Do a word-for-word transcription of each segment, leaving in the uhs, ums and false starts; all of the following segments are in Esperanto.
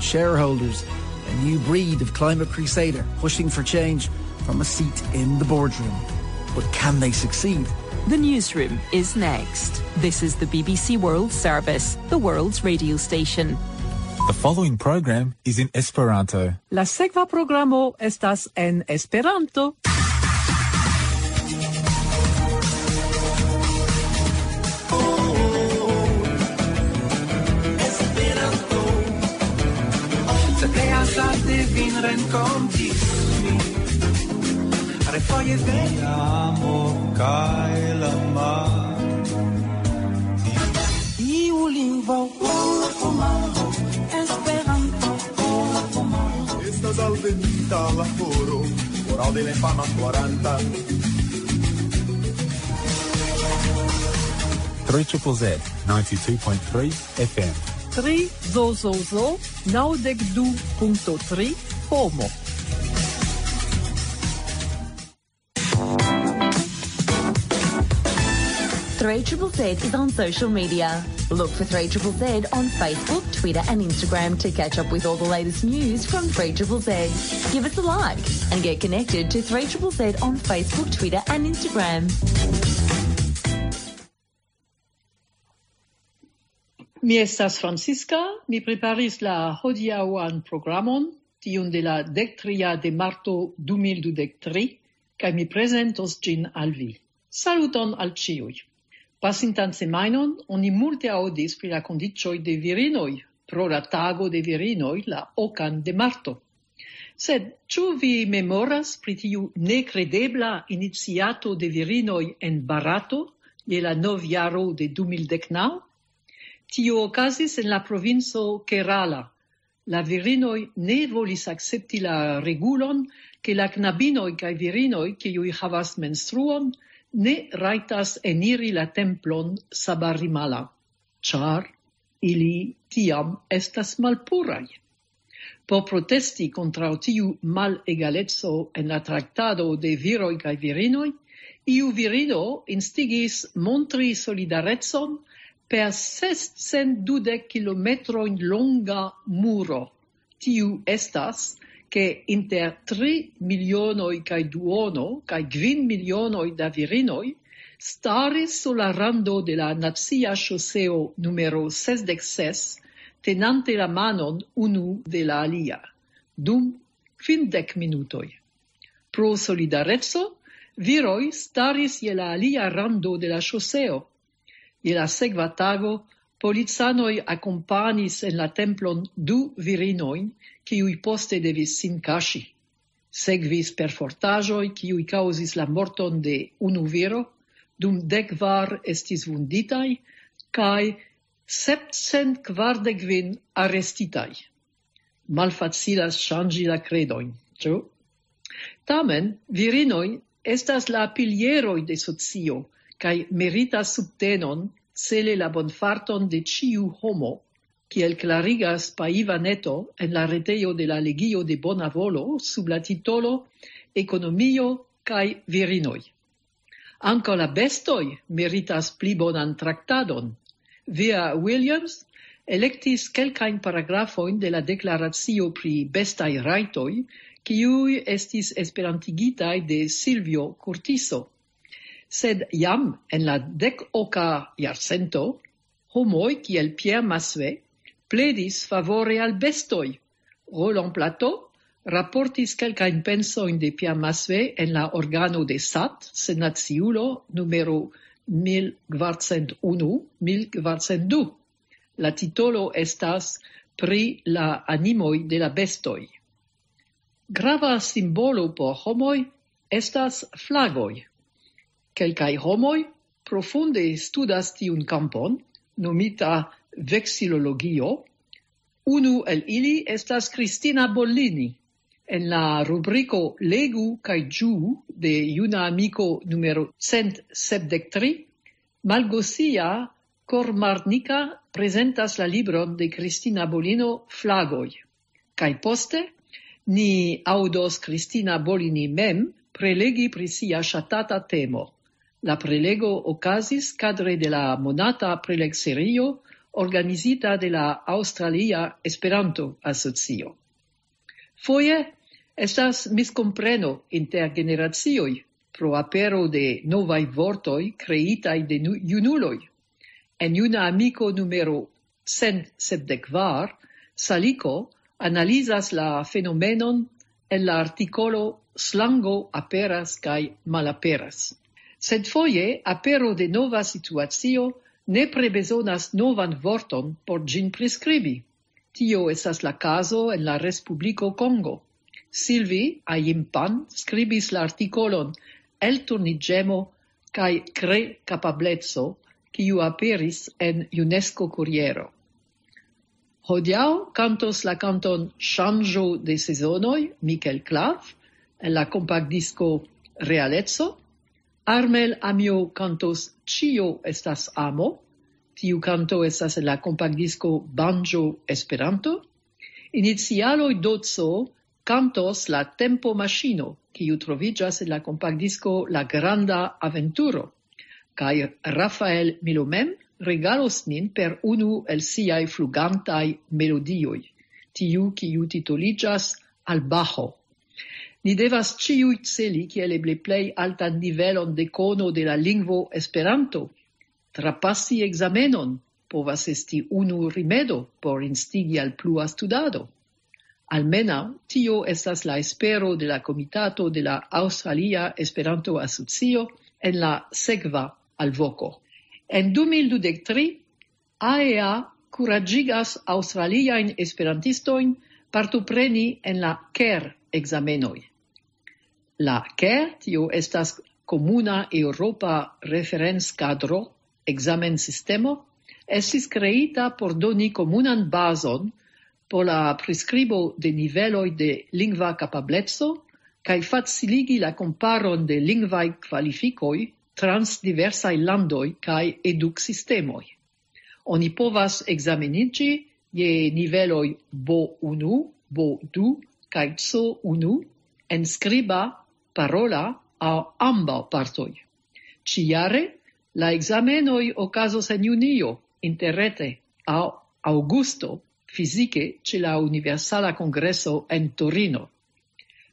Shareholders, a new breed of climate crusader pushing for change from a seat in the boardroom. But can they succeed? The Newsroom is next. This is the B B C World Service, the world's radio station. The following program is in Esperanto. La sekva programo estas en Esperanto. Tre azarde vin renkontis mi. Refoje vere. Amo kaj la mar. Iu lingvo. Esperanto. Estas alvenita la horo. Horo de la infana quaranta. Three triple Z, ninety-two point three F M. Tri zo zo zo, naŭdek du punkto tri, homo. Three triple Z is on social media. Look for Three triple Z on Facebook, Twitter, and Instagram to catch up with all the latest news from Three triple Z. Give us a like and get connected to Three triple Z on Facebook, Twitter, and Instagram. Mi estas Francisca, mi preparis la hodiaŭan programon, tiun de la dek tria de marto du mil dudek tri, kaj mi prezentos ĝin al vi. Saluton al ĉiuj. Pasintan semajnon oni multe aŭdis pri la kondiĉoj de virinoj pro la tago de virinoj la okan de marto. Sed ĉu vi memoras pri tiu nekredebla iniciato de virinoj en Barato je la novjaro de du mil dek naŭ? Tio okazis en la provinco Kerala. La virinoj ne volis akcepti la regulon, ke la knabinoj kaj virinoj, kiuj havas menstruon, ne rajtas eniri la templon Sabarimala, ĉar ili tiam estas malpuraj. Por protesti kontraŭ tiu malegaleco en la traktado de viroj kaj virinoj, iu virino instigis montri solidarecon per sescent dudek kilometrojn longa muro. Tiu estas, ke inter tri milionoj kaj duono kaj kvin milionoj da virinoj staris sur la rando de la nacia ŝoseo numero sesdek ses, tenante la manon unu de la alia, dum kvindek minutoj. Pro solidareco, viroj staris je la alia rando de la ŝoseo. Je la sekva tago, policanoj akompanis en la templon du virinojn, kiuj poste devis sin kaŝi. Sekvis perfortaĵoj, kiuj kaŭzis la morton de unu viro, dum dek kvar estis vunditaj, kaj sepcent kvardek kvin arestitaj. Malfacilas ŝanĝi la kredojn, ĉu? Tamen, virinoj estas la pilieroj de socio, kaj meritas subtenon cele la bonfarton de ĉiu homo, kiel klarigas Paiva Neto en la retejo de la Legio de Bona Volo sub la titolo Ekonomio kaj virinoj. Ankaŭ la bestoj meritas pli bonan traktadon. Via Williams elektis kelkajn paragrafojn de la deklaracio pri bestaj rajtoj, kiuj estis esperantigitaj de Silvio Curtiso. Sed jam en la dek oka jarcento, homoj kiel Pierre Massuet pledis favore al bestoj. Roland Plateau raportis kelkajn pensojn de Pierre Massuet en la organo de sat, senaciulo numero mil kvarcent unu, mil kvarcent du. La titolo estas Pri la animoj de la bestoj. Grava simbolo por homoj estas flagoj. Kelkaj homoj profunde studas tiun kampon, nomita veksilologio. Unu el ili estas Cristina Bollini. En la rubriko Legu kaj ĝuu de Juna Amiko numero cent sepdek tri, Malgosia Kormarnika prezentas la libron de Cristina Bollino Flagoj. Kaj poste ni aŭdos Cristina Bollini mem prelegi pri sia ŝatata temo. La prelego okazis kadre de la monata prelegserio organizita de la Aŭstralia Esperanto-Asocio. Foje estas miskompreno inter generacioj pro apero de novaj vortoj kreitaj de nu-, junuloj. En Juna Amiko numero cent sepdek kvar, Saliko analizas la fenomenon en la artikolo "Slango aperas kaj malaperas". Sed foje apero de nova situacio nepre bezonas novan vorton por ĝin priskribi. Tio estas la kazo en la Respubliko Kongo. Silvi Ayimpan skribis la artikolon "Elturniĝemo kaj kre-kapableco", kiu aperis en UNESCO Kuriero. Hodiaŭ kantos la kanton "Ŝanĝo de sezonoj" Mikel Klav en la kompaktdisko "Realeco". Armel Amio kantos "Ĉio estas amo". Tiu kanto estas en la kompaktdisko "Banjo Esperanto". Inicialoj Doco kantos "La tempo maŝino", kiu troviĝas en la kompaktdisko "La granda aventuro". Kaj Rafael Milo mem regalos nin per unu el siaj flugantaj melodioj, tiu kiu titoliĝas "Al Bajo". Ni devas ĉiuj celi kiel eble plej altan nivelon de kono de la lingvo Esperanto. Trapasi ekzamenon povas esti unu rimedo por instigi al plua studado. Almenaŭ tio estas la espero de la komitato de la Aŭstralia Esperanto-Asocio en la sekva alvoko. En du mil dudek tri, A E A kuraĝigas aŭstraliajn esperantistojn partopreni en la ker-ekzamenoj. La ker, tio estas komuna eŭropa referencadro, ekzamensistemo, estis kreita por doni komunan bazon por la priskribo de niveloj de lingva kapableco kaj faciligi la komparon de lingvaj kvalifikoj trans diversaj landoj kaj eduksistemoj. Oni povas ekzameniĝi je niveloj B unu, B du kaj C unu en skriba, parola aŭ ambaŭ partoj. Ĉijare la ekzamenoj okazos en junio, interrete, aŭ aŭgusto, fizike ĉe la Universala Kongreso en Torino.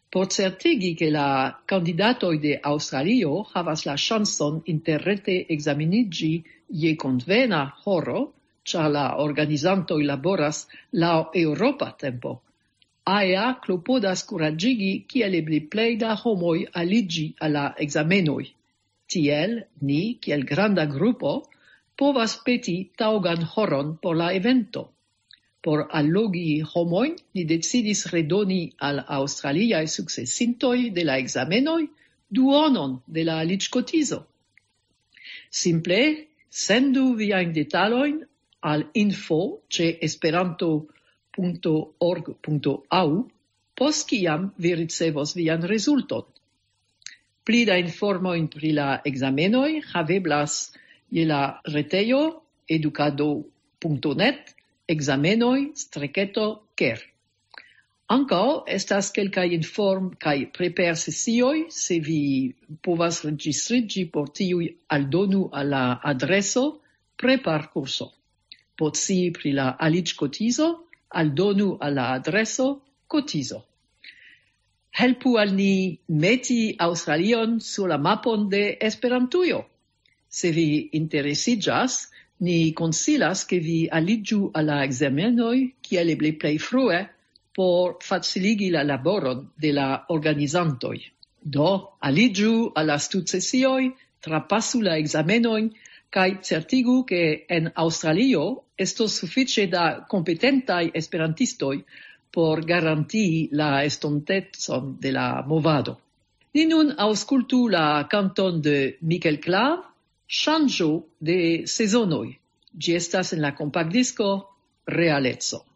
Por certigi, ke la kandidatoj de Aŭstralio havas la ŝancon interrete ekzameniĝi je konvena horo, ĉar la organizantoj laboras laŭ eŭropa tempo, A E A klopodas kuraĝigi kiel eble plej da homoj aliĝi al la ekzamenoj. Tiel ni, kiel granda grupo, povas peti taŭgan horon por la evento. Por allogi homojn, ni decidis redoni al aŭstraliaj sukcesintoj de la ekzamenoj duonon de la aliĝkotizo. Simple sendu viajn detalojn al info ĉe esperanto.org.au, post kiam vi ricevos vian rezulton. Pli da informojn pri la ekzamenoj haveblas je la retejo edukado.net, ekzamenoj streketo ker. Ankaŭ estas kelkaj inform- kaj preper-sesioj, se vi povas registriĝi por tiuj, aldonu al la adreso preparkurso. Por scii pri la aliĝkotizo, aldonu al la adreso kotizo. Helpu al ni meti Aŭstralion sur la mapon de Esperantujo. Se vi interesiĝas, ni konsilas, ke vi aliĝu al la ekzamenoj kiel eble plej frue por faciligi la laboron de la organizantoj. Do, aliĝu al la studsesioj, trapasu la ekzamenojn kaj certigu, ke en Aŭstralio estos sufiĉe da kompetentaj esperantistoj por garantii la estontecon de la movado. Ni nun aŭskultu la kanton de Mikel Klav, "Ŝanĝo de sezonoj". Ĝi estas en la kompaktdisko Realeco.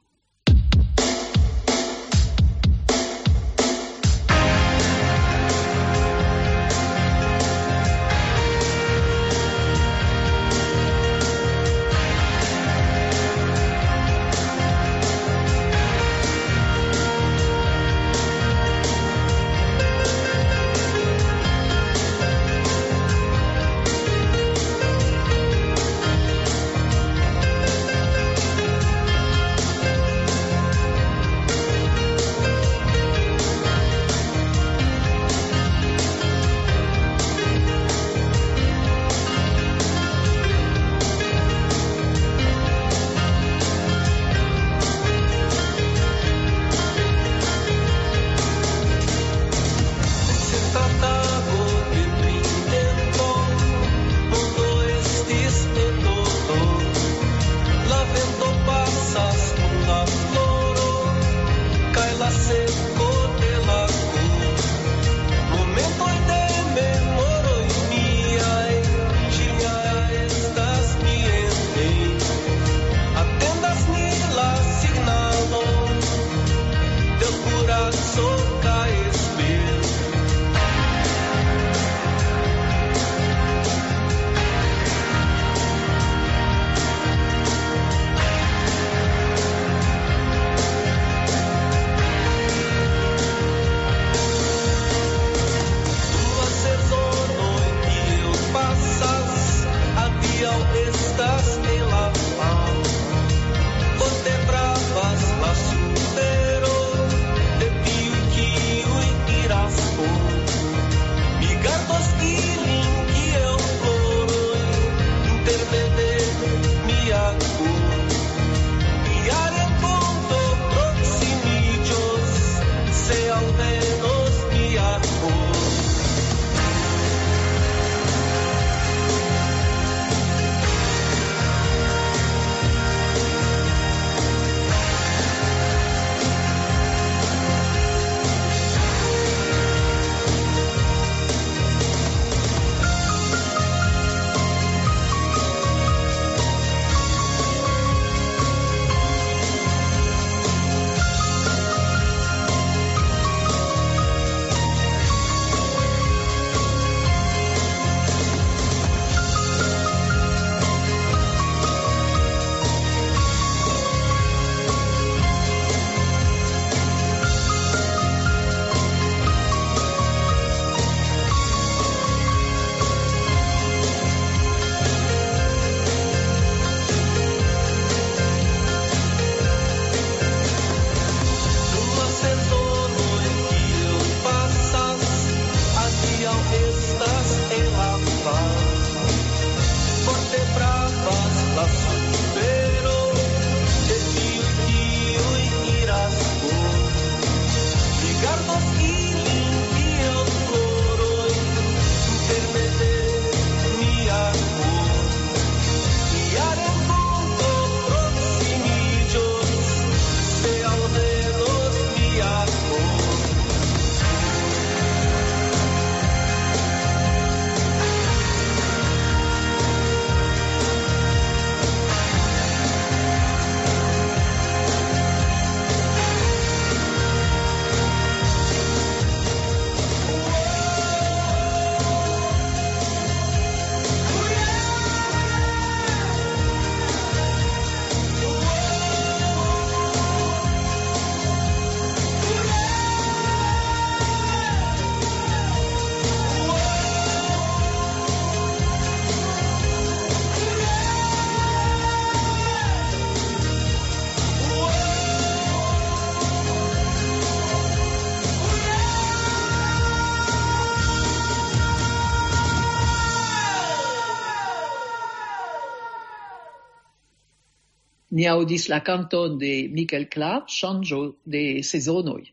Ni aŭdis la kanton de Michael Clapp, Ŝanĝo de sezonoj.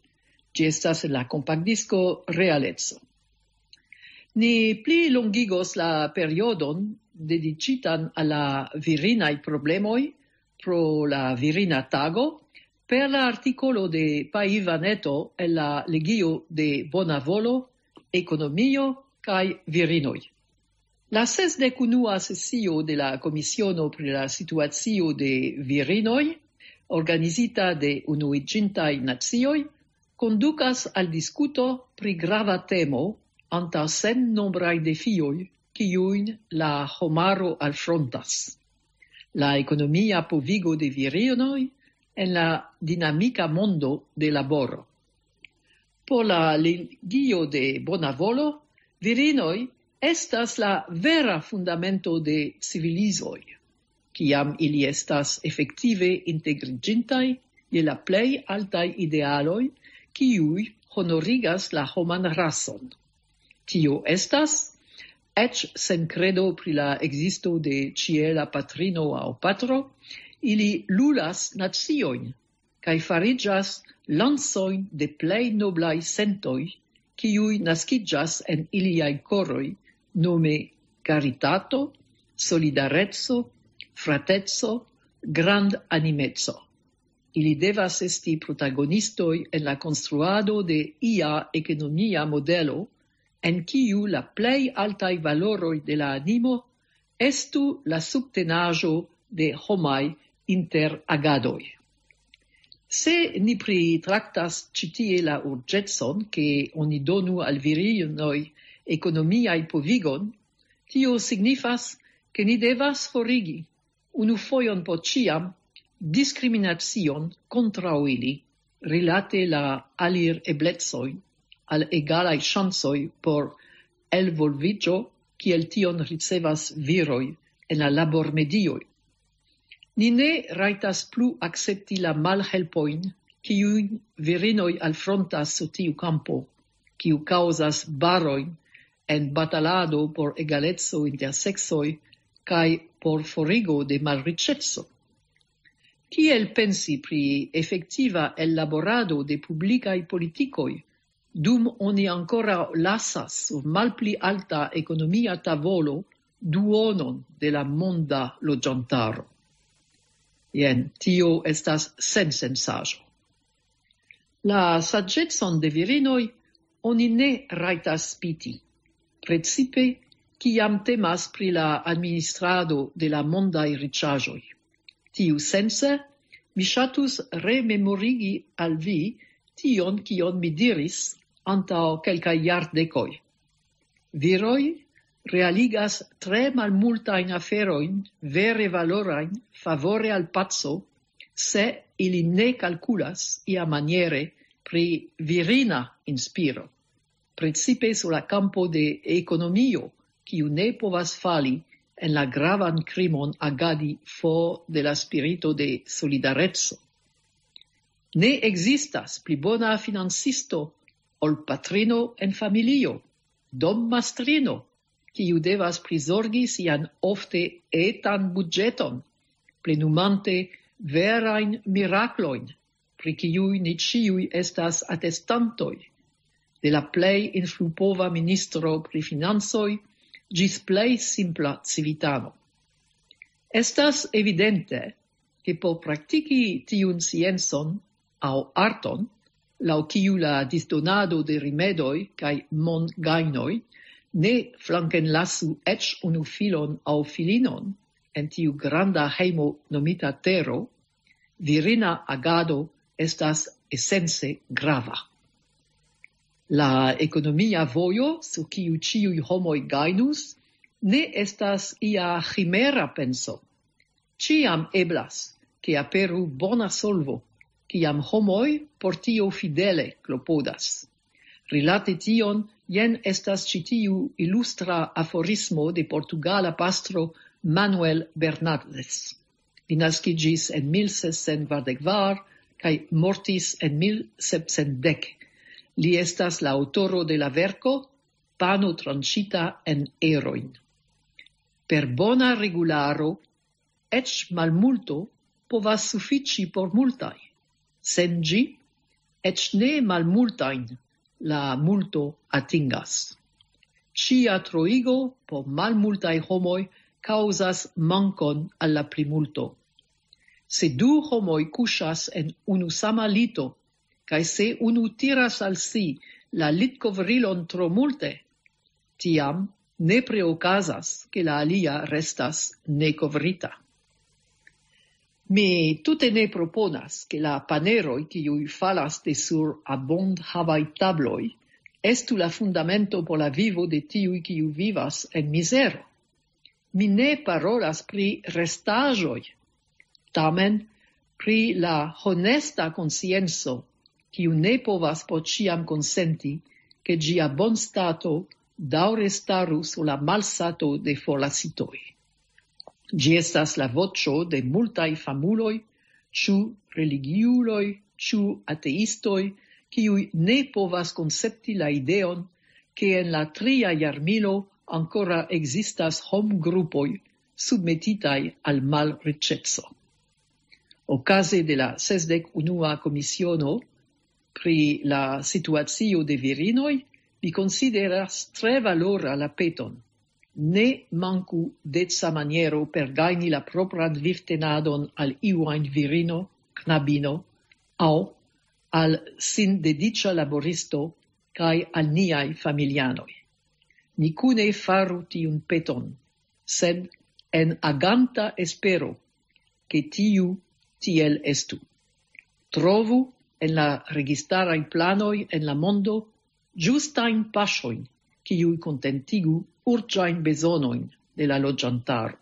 Ĝi estas en la kompaktdisko Realeco. Ni pli longigos la periodon dediĉitan al la virinaj problemoj pro la virina tago per la artikolo de Pai Vaneto en la legio de Bona Volo, Ekonomio kaj Virinoj. La sesdek unua sesio de la Komisiono pri la Situacio de Virinoj, organizita de Unuiĝintaj Nacioj, kondukas al diskuto pri grava temo antaŭ sennombraj defioj, kiujn la homaro alfrontas. La ekonomia povigo de virinoj en la dinamika mondo de laboro. Por la legio de Bona Volo, virinoj estas la vera fundamento de civilizoj, kiam ili estas efektive integriĝintaj je la plej altaj idealoj, kiuj honorigas la homan rason. Tio estas, eĉ sen kredo pri la ekzisto de ĉiela patrino aŭ patro, ili lulas naciojn kaj fariĝas lancojn de plej noblaj sentoj, kiuj naskiĝas en iliaj koroj, nome karitato, solidareco, frateco, grandanimeco. Ili devas esti protagonistoj en la konstruado de ia ekonomia modelo, en kiu la plej altaj valoroj de la animo estu la subtenaĵo de homaj interagadoj. Se ni pritraktas ĉi tie la urĝecon, ke oni donu al virinoj ekonomiaj povigon, tio signifas, ke ni devas forigi unu fojon por ĉiam diskriminacion kontraŭ ili rilate la alireblecoj al egalaj ŝancoj por elvolviĝo, kiel tion ricevas viroj en la labormedioj. Ni ne rajtas plu akcepti la malhelpojn, kiujn virinoj alfrontas sur tiu kampo, kiu kaŭzas barojn en batalado por egaleco inter seksoj kaj por forigo de malriĉeco. Kiel pensi pri efektiva ellaborado de publikaj politikoj, dum oni ankoraŭ lasas sur malpli alta ekonomia tavolo duonon de la monda loĝantaro? Jen, tio estas sensensaĵo. La saĝecon de virinoj oni ne rajtas spiti, precipe kiam temas pri la administrado de la mondaj riĉaĵoj. Tiusence, mi ŝatus rememorigi al vi tion, kion mi diris antaŭ kelkaj jardekoj. Viroj realigas tre malmultajn aferojn vere valorajn favore al paco, se ili ne kalkulas iamaniere pri virina inspiro, precipe sur la kampo de ekonomio, kiu ne povas fali en la gravan krimon agadi for de la spirito de solidareco. Ne ekzistas pli bona financisto ol patrino en familio, dommastrino, kiu devas prizorgi sian ofte etan budĝeton, plenumante verajn miraklojn, pri kiuj ni ĉiuj estas atestantoj, de la plej influpova ministro pri financoj ĝis plej simpla civitano. Estas evidente, ke por praktiki tiun sciencon aŭ arton, laŭ kiu la disdonado de rimedoj kaj mongajnoj ne flankenlasu eĉ unu filon aŭ filinon en tiu granda hejmo nomita tero, virina agado estas esence grava. La ekonomia vojo, sur kiu ĉiuj homoj gajnus, ne estas ia ĥimera penso. Ĉiam eblas, ke aperu bona solvo, kiam homoj por tio fidele klopodas. Rilate tion, jen estas ĉi tiu ilustra aforismo de portugala pastro Manuel Bernardes. Li naskiĝis en mil sescent kvardek kvar kaj mortis en mil sepcent dek. Li estas la aŭtoro de la verko Pano tranĉita en erojn. Per bona regularo, eĉ malmulto povas sufiĉi por multaj. Sen ĝi, eĉ ne malmultajn la multo atingas. Ĉia troigo por malmultaj homoj kaŭzas mankon al la plimulto. Se du homoj kuŝas en unu sama lito, kaj se unu tiras al si la litkovrilon tro multe, tiam nepre okazas, ke la alia restas nekovrita. Mi tute ne proponas, ke la paneroj, kiuj falas de sur abondhavaj tabloj, estu la fundamento por la vivo de tiuj, kiuj vivas en mizero. Mi ne parolas pri restaĵoj, tamen pri la honesta konscienco, kiu ne povas por ĉiam konsenti, ke ĝia bonstato daŭre staru sur la malsato de forlasitoj. Ĝi estas la voĉo de multaj famuloj, ĉu religiuloj, ĉu ateistoj, kiuj ne povas koncepti la ideon, ke en la tria jarmilo ankoraŭ ekzistas homgrupoj submetitaj al malriĉeco. Okaze de la sesdek unua komisiono pri la situacio de virinoj, mi konsideras tre valora la peton: ne manku deca maniero per gajni la propran vivtenadon al iu ajn virino, knabino, aŭ al sindediĉa laboristo kaj al niaj familianoj. Ni kune faru tiun peton, sed en aganta espero, ke tiu tiel estu. Trovu en la registaraj planoj en la mondo ĝustajn paŝojn, kiuj kontentigu urĝajn bezonojn de la loĝantaro.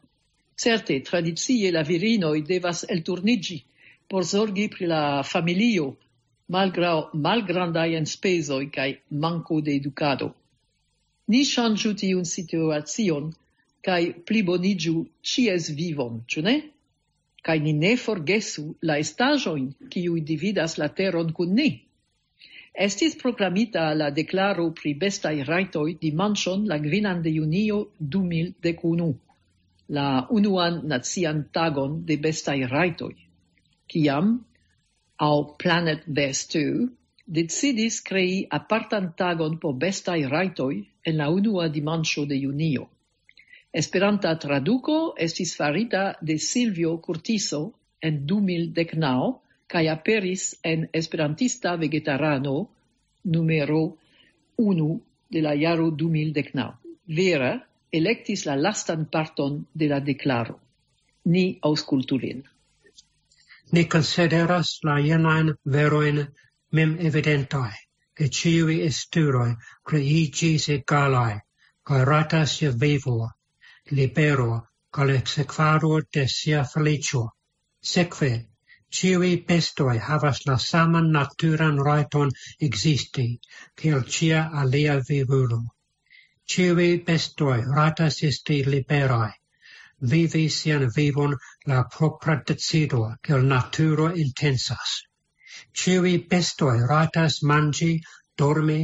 Certe, tradicie la virinoj devas elturniĝi por zorgi pri la familio, malgraŭ malgrandaj enspezoj kaj manko de edukado. Ni ŝanĝu tiun situacion kaj pliboniĝu ĉies vivon, ĉu ne? Kaj ni ne forgesu la estaĵojn, kiuj dividas la teron kun ni. Estis proklamita la deklaro pri bestaj rajtoj dimanĉon, la gvinan de junio du mil dek unu, la unuan nacian tagon de bestaj rajtoj, kiam aŭ Planet Best decidis krei apartan tagon por bestaj rajtoj en la unua dimanĉo de junio. Esperanta traduko estis farita de Silvio Curtiso en du mil dek naŭ kaj aperis en Esperantista Vegetarano numero unu de la jaro du mil dek naŭ. Vera elektis la lastan parton de la deklaro. Ni aŭskultu lin. Ni konsideras la jenajn verojn mem evidentaj, ke ĉiuj esturoj kreiĝis egalaj, kaj ratas je vivo, libero, kaj la sekvado de sia feliĉo. Sekve, ĉiuj bestoj havas la saman naturan rajton ekzisti, kiel ĉia alia vivulo. Ĉiuj bestoj ratas esti liberaj, vivi sian vivon la propra decido, kiel naturo intensas. Ĉiuj bestoj ratas manĝi, dormi,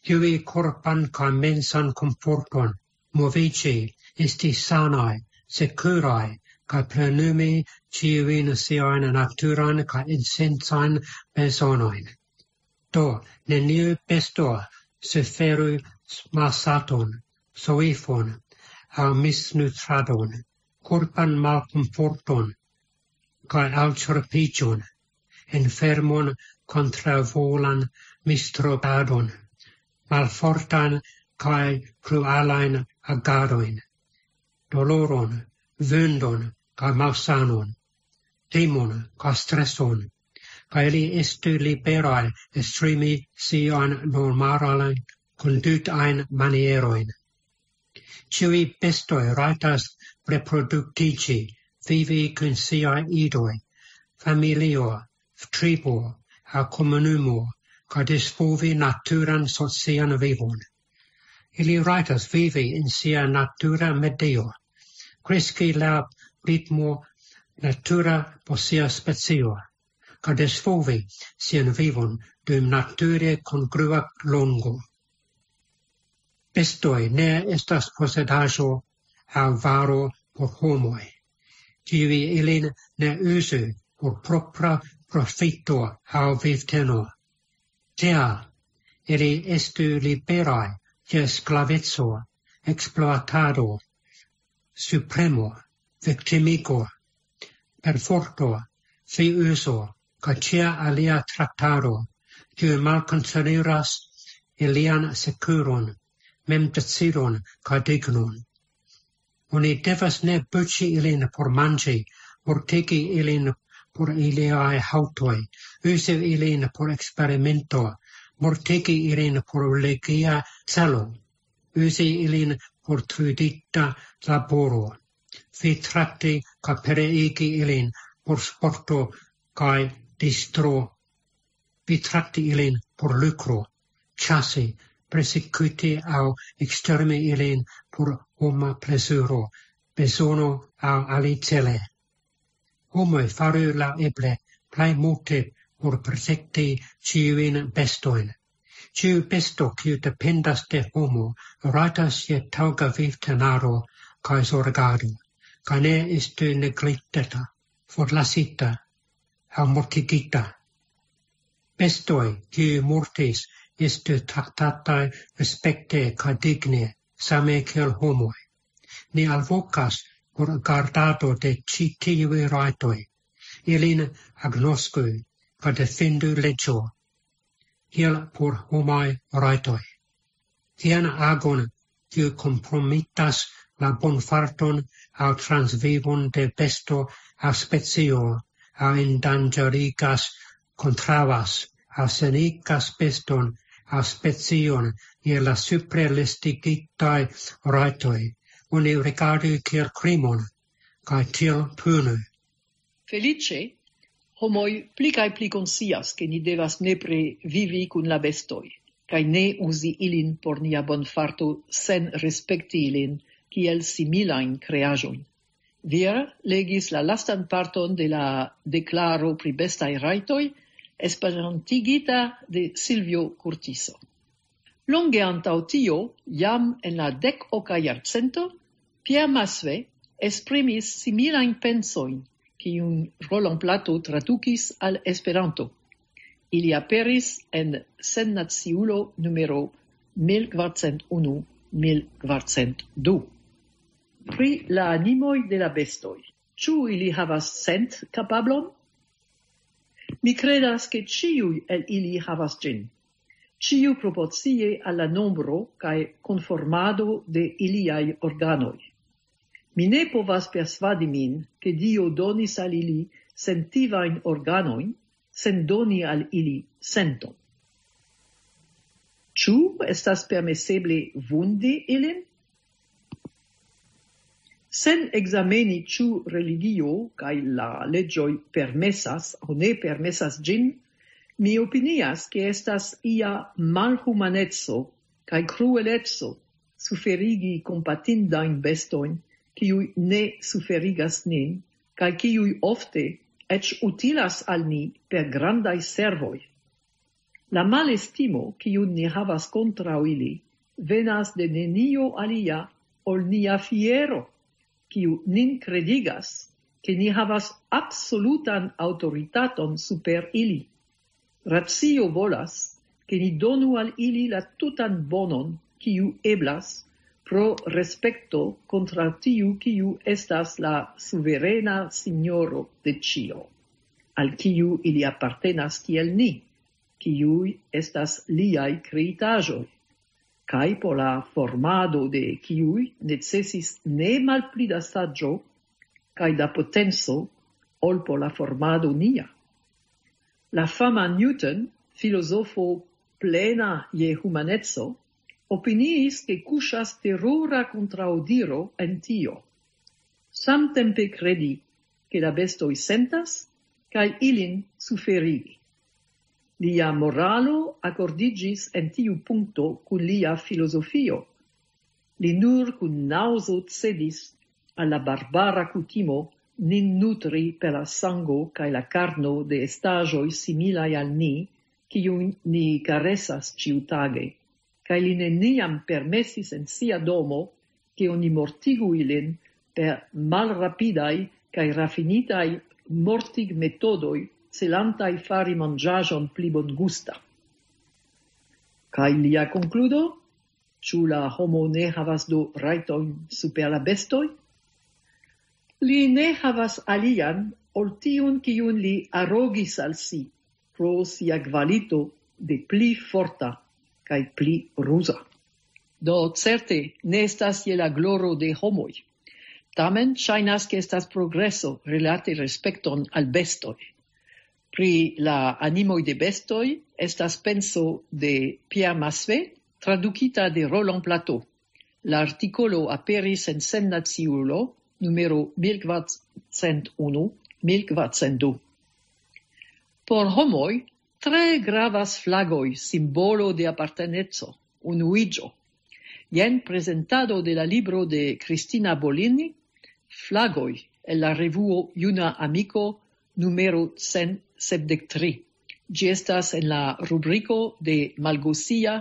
ĝui korpan kaj mensan komforton, moviĝi, esti sanaj, sekuraj, kaj plenumi ĉiujn siajn naturan kaj esencajn bezonojn. Do, neniu besto suferu malsaton, soifon, aŭ misnutradon, korpan malkomforton, kaj alĉorpiĝon, enfermon, kontraŭvolan mistropadon, malfortan kaj kruelajn agadojn, doloron, vundon kaj malsanon, timon kaj streson, kaj ili estu liberaj esprimi siajn normalajn kondutajn manierojn. Ĉiuj bestoj rajtas reproduktiĝi, vivi kun siaj idoj, familio, tribo, aŭ komunumo, kaj disvolvi naturan socian vivon. Ili rajtas vivi en sia natura medio, kreski laŭ ritmo natura por sia specio, kaj disvolvi sian vivon dum nature kongrua longo. Bestoj ne estas posedaĵo aŭ varo por homoj. Ĉiuj ilin ne uzu por propra profito aŭ vivteno. Tial, ili estu liberaj de sklaveco, ekspluatado, subpremo, viktimigo, perforto, fiuzo, kaj ĉia alia traktado, kiu malkonsideras ilian sekuron, memdecidon kaj dignon. Oni devas ne buĉi ilin por manĝi, mortigi ilin por iliaj haŭtoj, uzi ilin por eksperimento, mortigi ilin por religia celo, uzi ilin por trudita laboro, vi trakti kaj pereigi ilin por sporto kaj distro, vi trakti ilin por lukro, ĉasi, persekuti aŭ ekstermi ilin por homa plezuro, bezono aŭ alicele. Homoj faru la eble plej multe por protekti ĉiujn bestojn. Ĉiu besto, kiu dependas de homo, rajtas je taŭga vivtenaro kaj zorgado, kaj ne estu negligita, forlasita aŭ mortigita. Bestoj, kiuj mortis, estu traktataj respekte kaj digne, same kiel homoj. Ni alvokas por gardado de ĉi tiuj rajtoj. Ilin agnosku kaj defendu leĝo, kiel por homaj rajtoj. Tian agon, kiu kompromitas la bonfarton aŭ transvivon de besto aŭ specio, aŭ endanĝerigas, kontraŭas aŭ senigas beston aŭ specion je la supre listigitaj rajtoj, oni rigardu kiel krimon, kaj tiel punu. Feliĉe, homoj pli kaj pli konscias, ke ni devas nepre vivi kun la bestoj, kaj ne uzi ilin por nia bonfarto sen respekti ilin kiel similajn kreaĵojn. Vir legis la lastan parton de la deklaro pri bestaj rajtoj, esperantigita de Silvio Curtiso. Longe antaŭ tio, jam en la dek-oka jarcento, Pierre Massuet esprimis similajn pensojn, kiujn Roland Plato tradukis al Esperanto. Ili aperis en Sennaciulo numero mil kvarcent unu, mil kvarcent du. Pri la animoj de la bestoj. Ĉu ili havas sent-kapablon? Mi kredas, ke ĉiuj el ili havas ĝin. Ĉiu proporcie al la nombro kaj konformado de iliaj organoj. Mi ne povas persvadi min, ke Dio donis al ili sentivajn organojn, sen doni al ili senton. Ĉu estas permeseble vundi ilin? Sen ekzameni, ĉu religio kaj la leĝoj permesas aŭ ne permesas ĝin, mi opinias, ke estas ia malhumaneco kaj krueleco suferigi kompatindajn bestojn, kiuj ne suferigas nin, kaj kiuj ofte eĉ utilas al ni per grandaj servoj. La malestimo, kiun ni havas kontraŭ ili, venas de nenio alia ol nia fiero, kiu nin kredigas, ke ni havas absolutan aŭtoritaton super ili. Racio volas, ke ni donu al ili la tutan bonon, kiu eblas, pro respekto kontraŭ tiu, kiu estas la suverena signoro de ĉio, al kiu ili apartenas kiel ni, kiuj estas liaj kreitaĵoj, kaj por la formado de kiuj necesis ne malpli da saĝo kaj da potenco ol por la formado nia. La fama Newton, filozofo plena je humaneco, opiniis, ke kuŝas terura kontraŭdiro en tio. Samtempe kredi, ke la bestoj sentas, kaj ilin suferigi. Lia moralo akordiĝis en tiu punkto kun lia filozofio. Li nur kun naŭzo cedis al la barbara kutimo nin nutri per la sango kaj la karno de estaĵoj similaj al ni, kiujn ni karesas ĉiutage, kaj li neniam permesis en sia domo, ke oni mortigu ilin per malrapidaj kaj rafinitaj mortigmetodoj, celantaj fari manĝaĵon pli bongusta. Kaj lia konkludo? Ĉu la homo ne havas do rajtojn super la bestoj? Li ne havas alian ol tiun, kiun li arogis al si pro sia kvalito de pli forta kaj pli ruza. Do certe ne estas je la gloro de homoj. Tamen ŝajnas, ke estas progreso rilate respekton al bestoj. Pri la animoj de bestoj estas penso de Pierre Massuet, tradukita de Roland Plateau. La artikolo aperis en Sennaciulo numero mil kvarcent unu, mil kvarcent du. Por homoj tre gravas flagoj, simbolo de aparteneco, unuiĝo. Jen prezentado de la libro de Cristina Bolini, Flagoj, el la revuo Juna Amiko, numero cent sepdek tri. Ĝi estas en la rubriko de Malgosia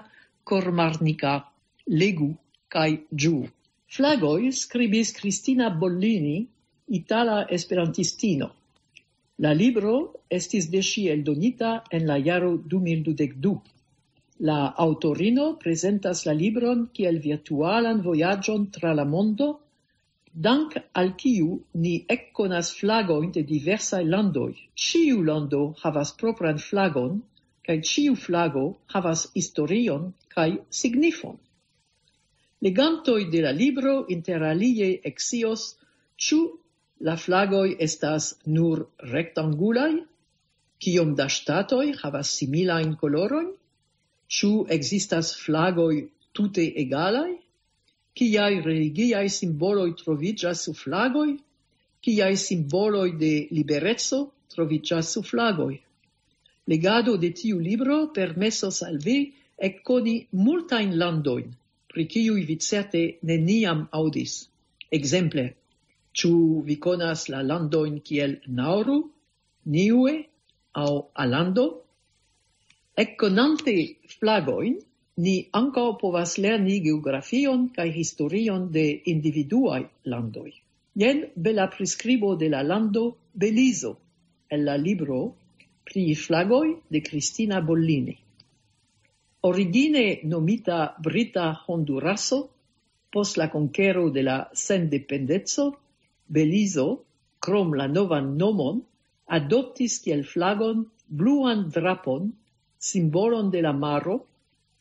Kormarnika. Legu kaj ĝuu. Flagoj, skribis Cristina Bollini, itala esperantistino. La libro estis de ŝi eldonita en la jaro du mil dudek du. La aŭtorino prezentas la libron kiel virtualan vojaĝon tra la mondo, dank al kiu ni ekkonas flagojn de diversaj landoj. Ĉiu lando havas propran flagon, kaj ĉiu flago havas historion kaj signifon. Legantoj de la libro, inter alie, ekscios, ĉu la flagoj estas nur rektangulaj, kiom da ŝtatoj havas similajn kolorojn, ĉu ekzistas flagoj tute egalaj, kiaj religiaj simboloj troviĝas sur flagoj, kiaj simboloj de libereco troviĝas sur flagoj. Legado de tiu libro permesos al vi ekkoni multajn landojn, pri kiuj vi certe neniam aŭdis. Ekzemple, ĉu vi konas la landojn kiel Nauru, Niue aŭ Alando? Ekkonante flagojn, ni ankaŭ povas lerni geografion kaj historion de individuaj landoj. Jen bela priskribo de la lando Belizo, el la libro Pri flagoj de Cristina Bollini. Origine nomita Brita Honduraso, post la konkero de la sendependeco, Belizo, krom la novan nomon, adoptis kiel flagon bluan drapon, simbolon de la maro,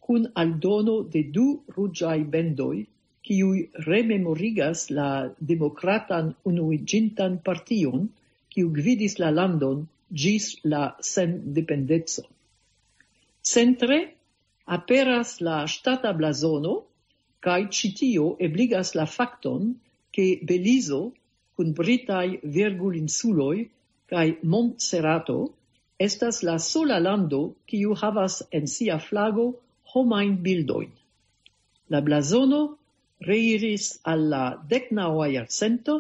kun aldono de du ruĝaj bendoj, kiuj rememorigas la Demokratan Unuiĝintan Partion, kiu gvidis la landon ĝis la sendependeco. Centre aperas la ŝtata blazono, kaj ĉi tio ebligas la fakton, ke Belizo kun britaj Virgulinsuloj kaj Montserrato estas la sola lando, kiu havas en sia flago homajn bildojn. La blazono reiris al la deknaŭa jarcento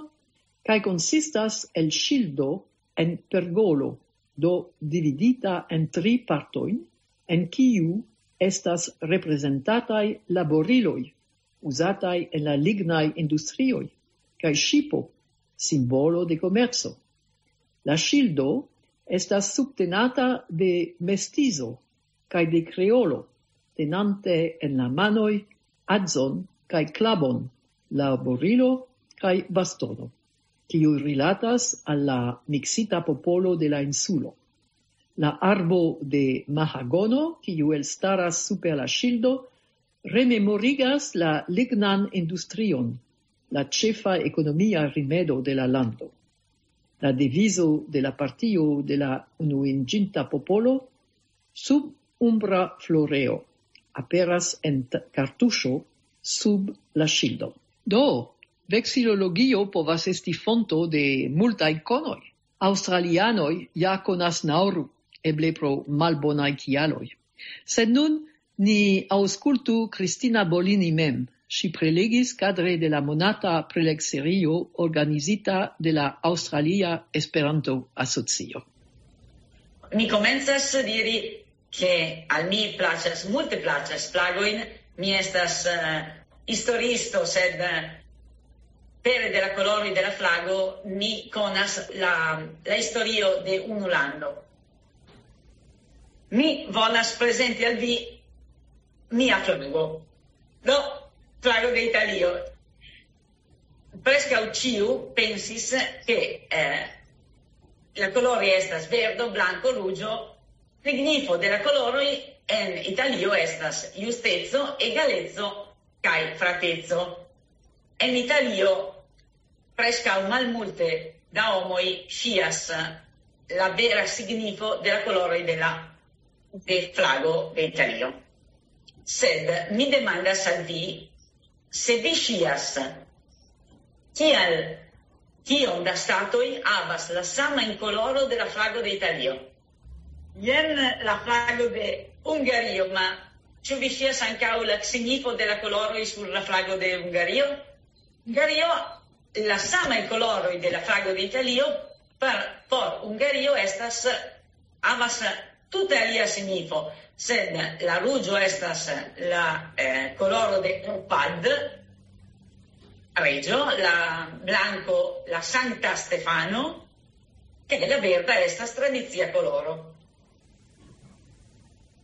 kaj konsistas el ŝildo en pergolo, do dividita en tri partojn, en kiu estas reprezentataj laboriloj uzataj en la lignaj industrioj, kaj ŝipo, simbolo de komerco. La ŝildo estas subtenata de mestizo kaj de kreolo, tenante en la manoj adzon kaj klabon, laborilo kaj bastono, kiuj rilatas al la miksita popolo de la insulo. La arbo de mahagono, kiu elstaras super la ŝildo, rememorigas la lignan industrion, la ĉefa ekonomia rimedo de la lando. La devizo de la partio de la Unuiĝinta Popolo: sub umbra floreo, aperas en t-, kartuŝo sub la ŝildo. Do, veksilologio povas esti fonto de multaj konoj. Aŭstralianoj ja konas Nauru, eble pro malbonaj kialoj. Sed nun ni aŭskultu Cristina Bolini mem. Ŝi prelegis kadre de la monata prelegserio organizita de la Aŭstralia Esperanto-Asocio. Mi komencas diri, ke al mi plaĉas, multe plaĉas flagojn. Mi estas, eh, historiisto, sed, eh, pere de la koloroj de la flago ni konas la, la historio de unu lando. Mi volas prezenti al vi mia flago. Do, flago de Italio. Preskaŭ ĉiu pensis, ke, eh, la koloroj estas verdo, blanko, ruĝo. Signifo de la koloroj en Italio estas justeco, egaleco kaj frateco. En Italio preskaŭ malmulte da homoj scias la vera signifo de la koloroj de la, de flago de Italio. Sed mi demandas al vi, se vi scias, kial, kiom da statoj havas la samajn koloro de la flago de Italio. Jen la flago de Hungario, ma ĉu vi scias ankaŭ la signifo de la koloroj sur la flago de Hungario? Hungario, la samaj koloroj de la flago de Italio, per, por Hungario estas, havas tute alia signifo, sed la ruĝo estas la, eh, koloro de Arpad, reĝo, la blanko, la Sankta Stefano, kaj la verda estas tradicia koloro.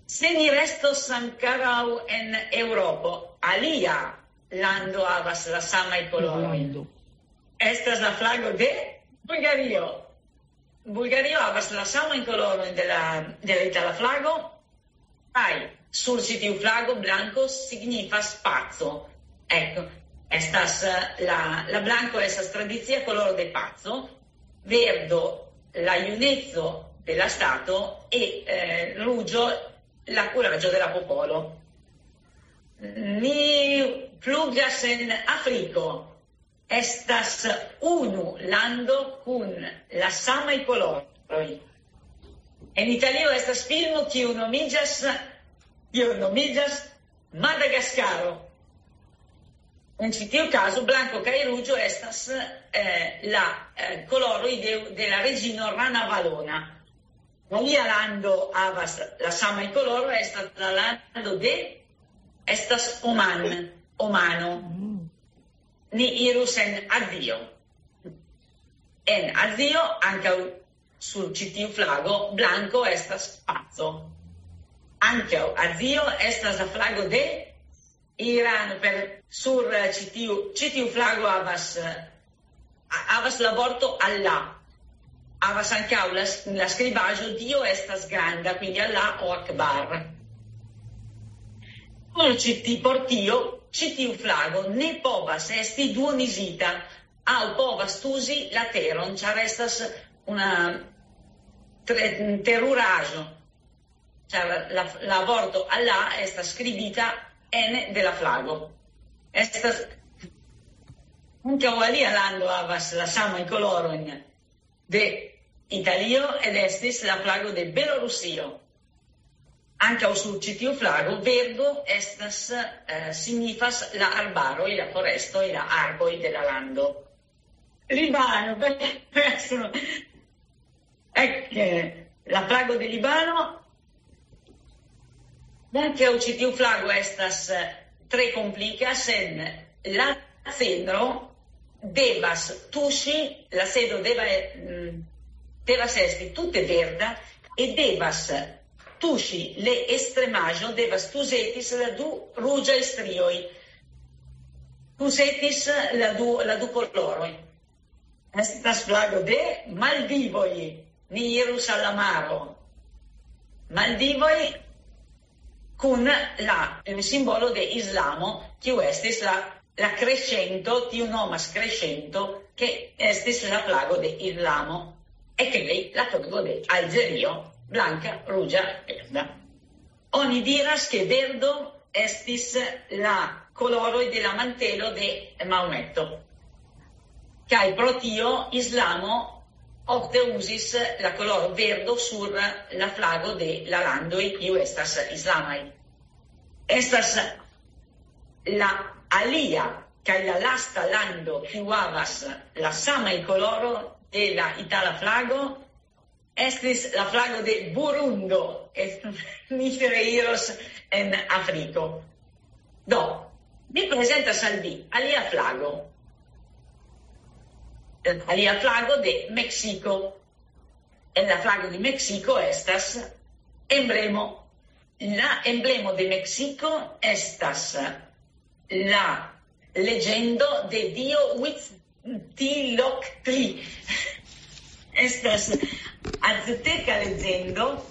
Se ni restos ankoraŭ en Eŭropo, alia lando havas la samaj koloroj. Estas la flago de Bulgario. Bulgario havas la samajn kolorojn de la, de la itala flago, kaj sur ĉi tiu flago blanko signifas paco. Ecco, estas, eh, la, la blanko estas tradicia koloro de paco, verdo la juneco de la stato e, eh, ruĝo la kuraĝo de la popolo. Ni flugas en Afriko. Estas unu lando kun la samaj koloroj. En Italio estas filmo kiu nomiĝas, kiu nomiĝas Madagaskaro. En ĉi tiu kazo, blanko kaj ruĝo estas, eh, la, eh, koloroj de, de la reĝino Rana Valona. Alia lando havas la samaj koloro, estas la lando de, estas Oman, Omano. Ni irus en Azio. En Azio, ankaŭ sur ĉi tiu flago, blanko estas paco. Ankaŭ Azio estas la flago de Irano, per sur, eh, ĉi tiu, ĉi tiu flago havas, eh, ha-, havas la vorto Allah. Havas ankaŭ la s-, la skribaĵo Dio estas granda, quindi Allah o Akbar. Por ĉi ti-, por tio, ĉi tiu flago ne povas esti duonizita, aŭ povas tuzi la teron, ĉar estas una tre-, teruraĵo, ĉar la, la vorto Allah estas skribita ene de la flago. Estas ankaŭ alia lando havas la samajn kolorojn de Italio, ed estis la flago de Belorusio. Ankaŭ sur ĉi tiu flago verdo estas, eh, signifas la arbaroj, la forestoj, la arboj de la lando. Libano, beh, adesso, ecco, la flago de Libano, ankaŭ ĉi tiu flago estas, eh, tre komplika, sed la cedro devas tuŝi, la cedro deva, mm, devas esti tute verda e devas tuŝi, le estremaĵo devas tuzetis la du ruĝaj strioj. Tuzetis la du, la du koloroj. Estas flago de Maldivoj. Ni irus al la maro. Maldivoj kun la, eh, simbolo de Islamo, kiu estis la, la crescento, tiu nomas crescento, ke estis la flago de Islamo. E kaj la flago de Alĝerio, blanka, ruĝa, verda. Oni diras, ke verdo estis la koloroj de la mantelo de Maometo. Kaj pro tio Islamo ofte uzis la koloro verdo sur la flago de la landoj, kiu estas islamaj. Estas la alia kaj la lasta lando, kiu havas la samaj koloro de la itala flago, estis la flago de Burundo, e mi reiros en Afriko. Do, mi prezentas al vi alia flago. Alia flago de Meksiko. En la flago de Meksiko estas emblemo. La emblemo de Meksiko estas la legendo de dio Huitzilopochtli. Estas azteka legendo.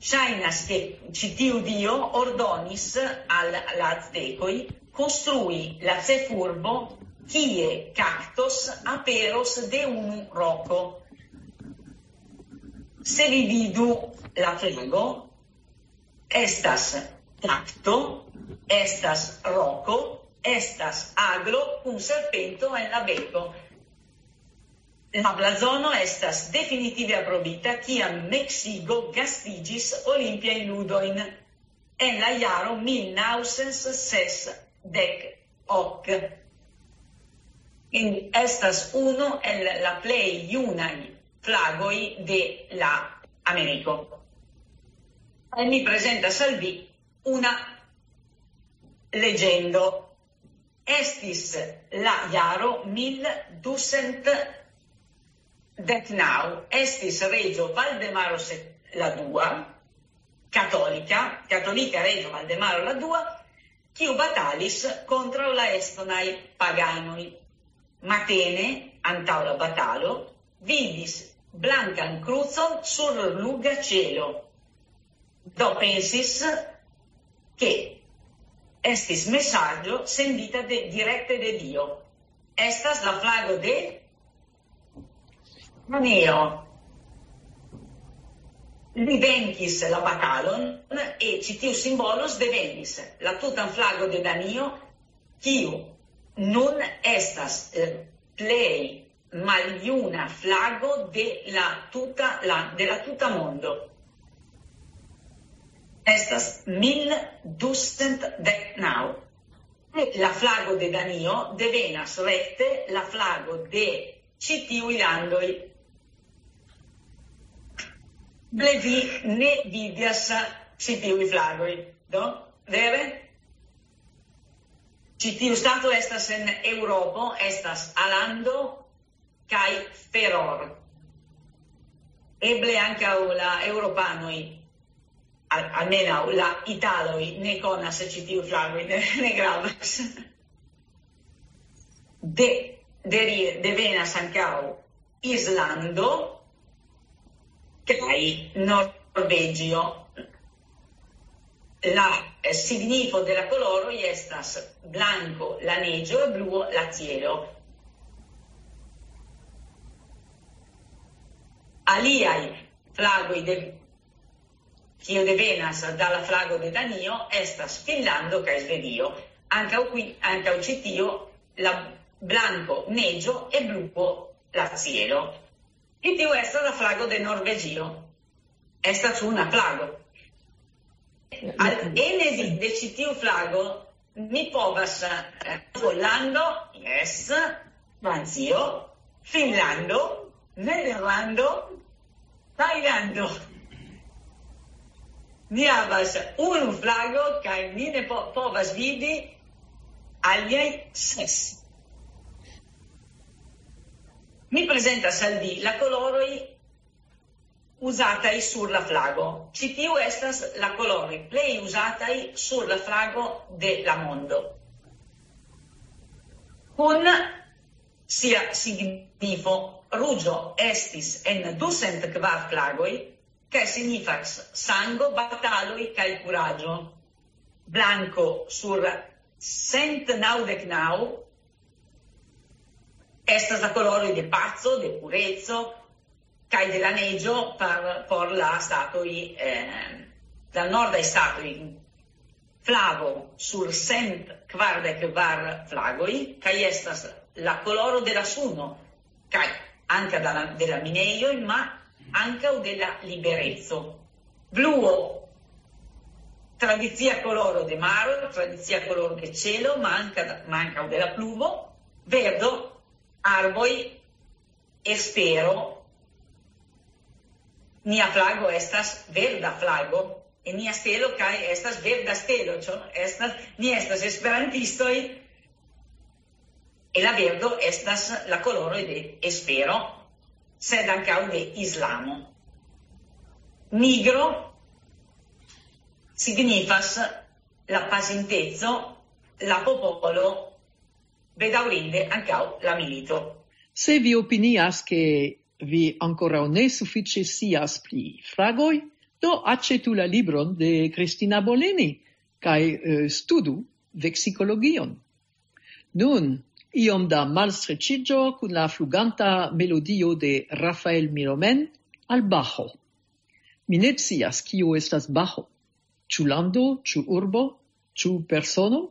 Ŝajnas, ke ĉi tiu dio ordonis al la aztekoj konstrui la ĉefurbo, kie kaktos aperos de unu roko. Se vi vidu la flago, estas kakto, estas roko, estas aglo kun serpento en la beko. La blazono estas definitive aprobita, kiam Meksiko gastiĝis Olimpiajn Ludojn en la jaro mil naŭcent sesdek ok. Estas unu el la plej junaj flagoj de la Ameriko. Kaj mi prezentas al vi una legendo. Estis la jaro mil ducent dek naŭ, estis reĝo Valdemaro se-, la dua, katolika, katolika reĝo Valdemaro la dua, kiu batalis kontraŭ la estonaj paganoj. Matene, antaŭ la batalo, vidis blankan krucon sur ruĝa ĉelo. Do pensis, ke estis mesaĝo sendita de, direkte de Dio. Estas la flago de Danio. Li venkis la batalon e ĉi tiu simbolo devenis la tutan flago de Danio, kiu nun estas, eh, plej maljuna flago de la tuta, la, de la tuta mondo. Estas mil ducent dek naŭ. La flago de Danio devenas rekte la flago de ĉi tiuj landoj. Eble vi ne vidas ĉi tiuj flagoj, do? Vere? Ĉi tiu stato estas en Eŭropo, estas Alando kaj Feror. Eble ankaŭ la eŭropanoj, al-, almenaŭ la italoj, ne konas ĉi tiu flagoj, ne, ne gravas. De, de, devenas ankaŭ Islando kaj Norvegio. La, eh, signifo de la koloroj estas blanko la neĝo, bluo la cielo. Aliaj flagoj de, kio devenas da la flago de Danio estas Finnlando kaj Svedio. Ankaŭ qui, ankaŭ ĉi tio la blanko neĝo e bluo la cielo. Ĉi tiu estas la flago de Norvegio. Estas una flago. Al ene de, de ĉi tiu flago mi povas, eh, Pollando, yes, Francio, Finnlando, Nederlando, Tajlando. Mi havas unu flago kaj mi ne po-, povas vidi aliaj ses. Mi prezentas al vi la koloroj uzataj sur la flago. Ĉi tiu estas la koloroj plej uzataj sur la flago de la mondo. Kun sia signifo, ruĝo estis en ducent kvar flagoj, kaj signifas sango, bataloj kaj kuraĝo. Blanko sur cent naŭdek naŭ estas la koloroj de paco, de pureco, kaj de la neĝo por, por la statoj, eh, la nordaj statoj. Flavo sur cent kvardek kvar flagoj, kaj estas la koloro de la suno, kaj ankaŭ de la, de la minejoj, ma ankaŭ de la libereco. Bluo, tradicia koloro de maro, tradicia koloro de ĉelo, ma ankaŭ, ma ankaŭ de la pluvo. Verdo, arboj, espero. Nia flago estas verda flago, e nia stelo kaj estas verda stelo, ĉu? Estas, ni estas esperantistoj. Kaj la verdo estas la koloroj de espero, sed ankaŭ de islamo. Nigro signifas la pasinteco, la popolo, bedaŭrinde ankaŭ la milito. Se vi opinias, ke vi ankoraŭ ne sufiĉe scias pri fragoj, do aĉetu la libron de Kristina Boleni kaj eh, studu veksikologion. Nun, iom da malstreĉiĝo kun la fluganta melodio de Rafael Miromen al Bajo. Mi ne scias, kio estas Bajo. Ĉu lando, ĉu urbo, ĉu persono?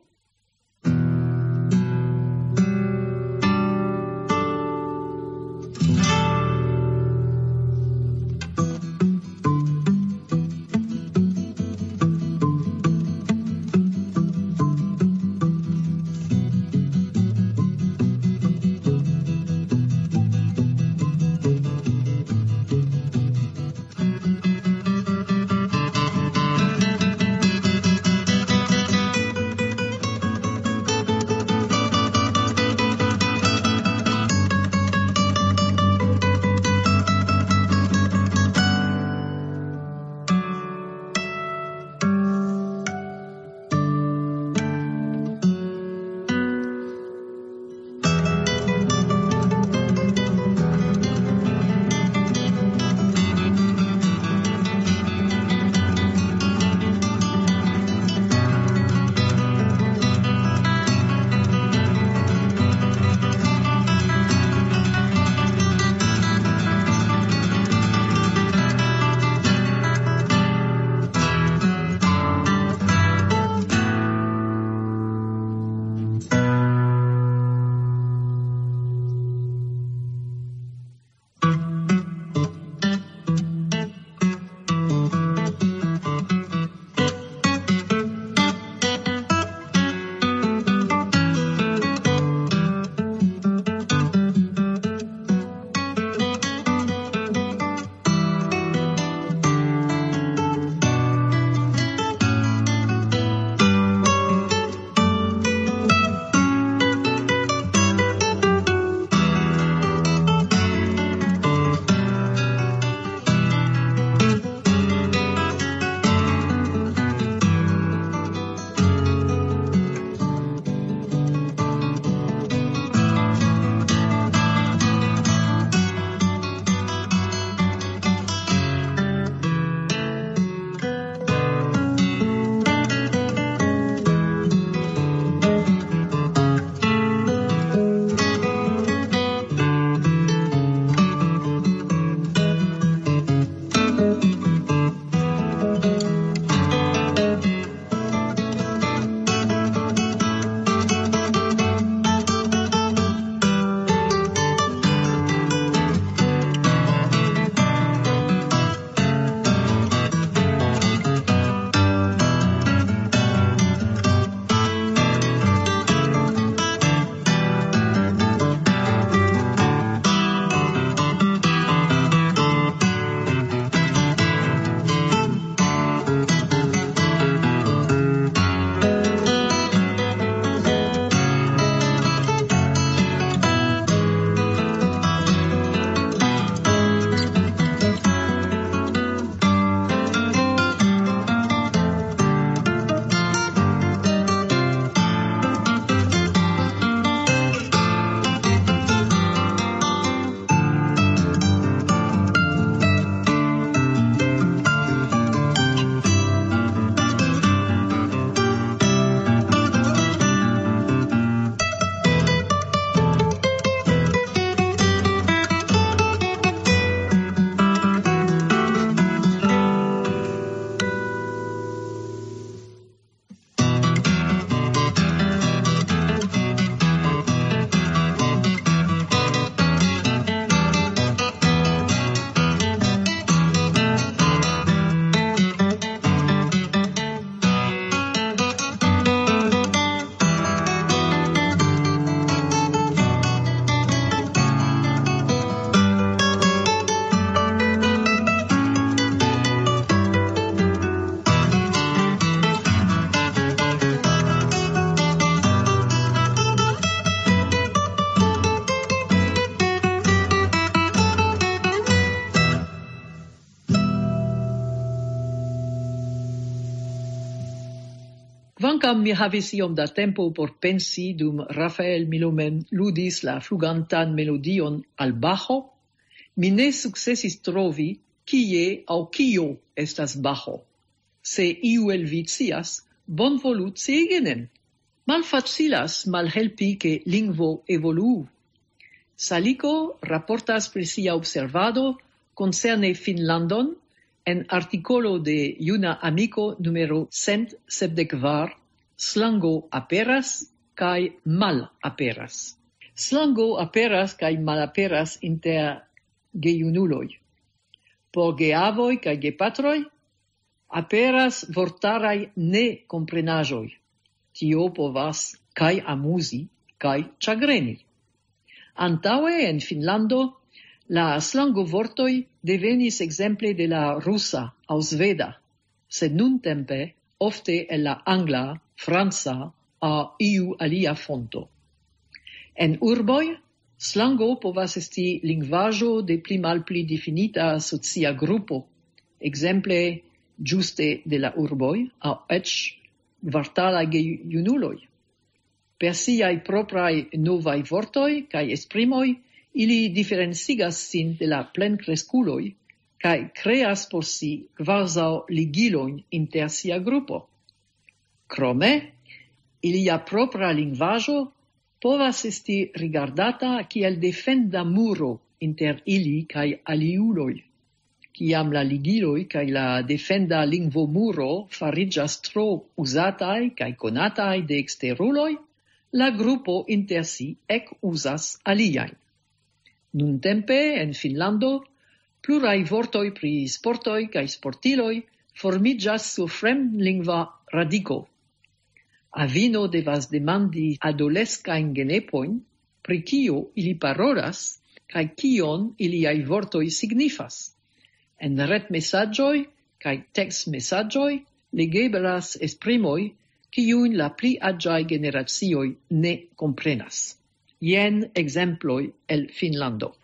Kvankam mi havis iom da tempo por pensi dum Rafael Milomen ludis la flugantan melodion al Bajo, mi ne sukcesis trovi, kie aŭ kio estas Bajo. Se iu el vi scias, bonvolu sciigi nin. Malfacilas malhelpi, ke lingvo evoluu. Saliko raportas pri sia observado koncerne Finnlandon en artikolo de Juna Amiko numero cent sepdek kvar: "Slango aperas kaj malaperas." Slango aperas kaj malaperas inter gejunuloj. Por geavoj kaj gepatroj aperas vortaraj nekomprenaĵoj. Tio povas kaj amuzi, kaj ĉagreni. Antaŭe en Finnlando la slangovortoj devenis ekzemple de la rusa aŭ sveda, sed nuntempe ofte el la angla, franca aŭ iu alia fonto. En urboj, slango povas esti lingvaĵo de pli malpli difinita socia grupo, ekzemple ĝuste de la urboj aŭ eĉ kvartalaj gejunuloj. Per siaj propraj novaj vortoj kaj esprimoj, ili diferencigas sin de la plenkreskuloj kaj kreas por si kvazaŭ ligilojn inter sia grupo. Krome, ilia propra lingvaĵo povas esti rigardata kiel defenda muro inter ili kaj aliuloj. Kiam la ligiloj kaj la defenda lingvomuro fariĝas tro uzataj kaj konataj de eksteruloj, la grupo inter si ekuzas aliajn. Nuntempe en Finnlando pluraj vortoj pri sportoj kaj sportiloj formiĝas sur fremdlingva radiko. Avino devas demandi adoleskajn genepojn, pri kio ili parolas kaj kion iliaj vortoj signifas. En retmesaĝoj kaj tekstmesaĝoj legeblas esprimoj, kiujn la pli aĝaj generacioj ne komprenas. Jen ekzemploj el Finnlando.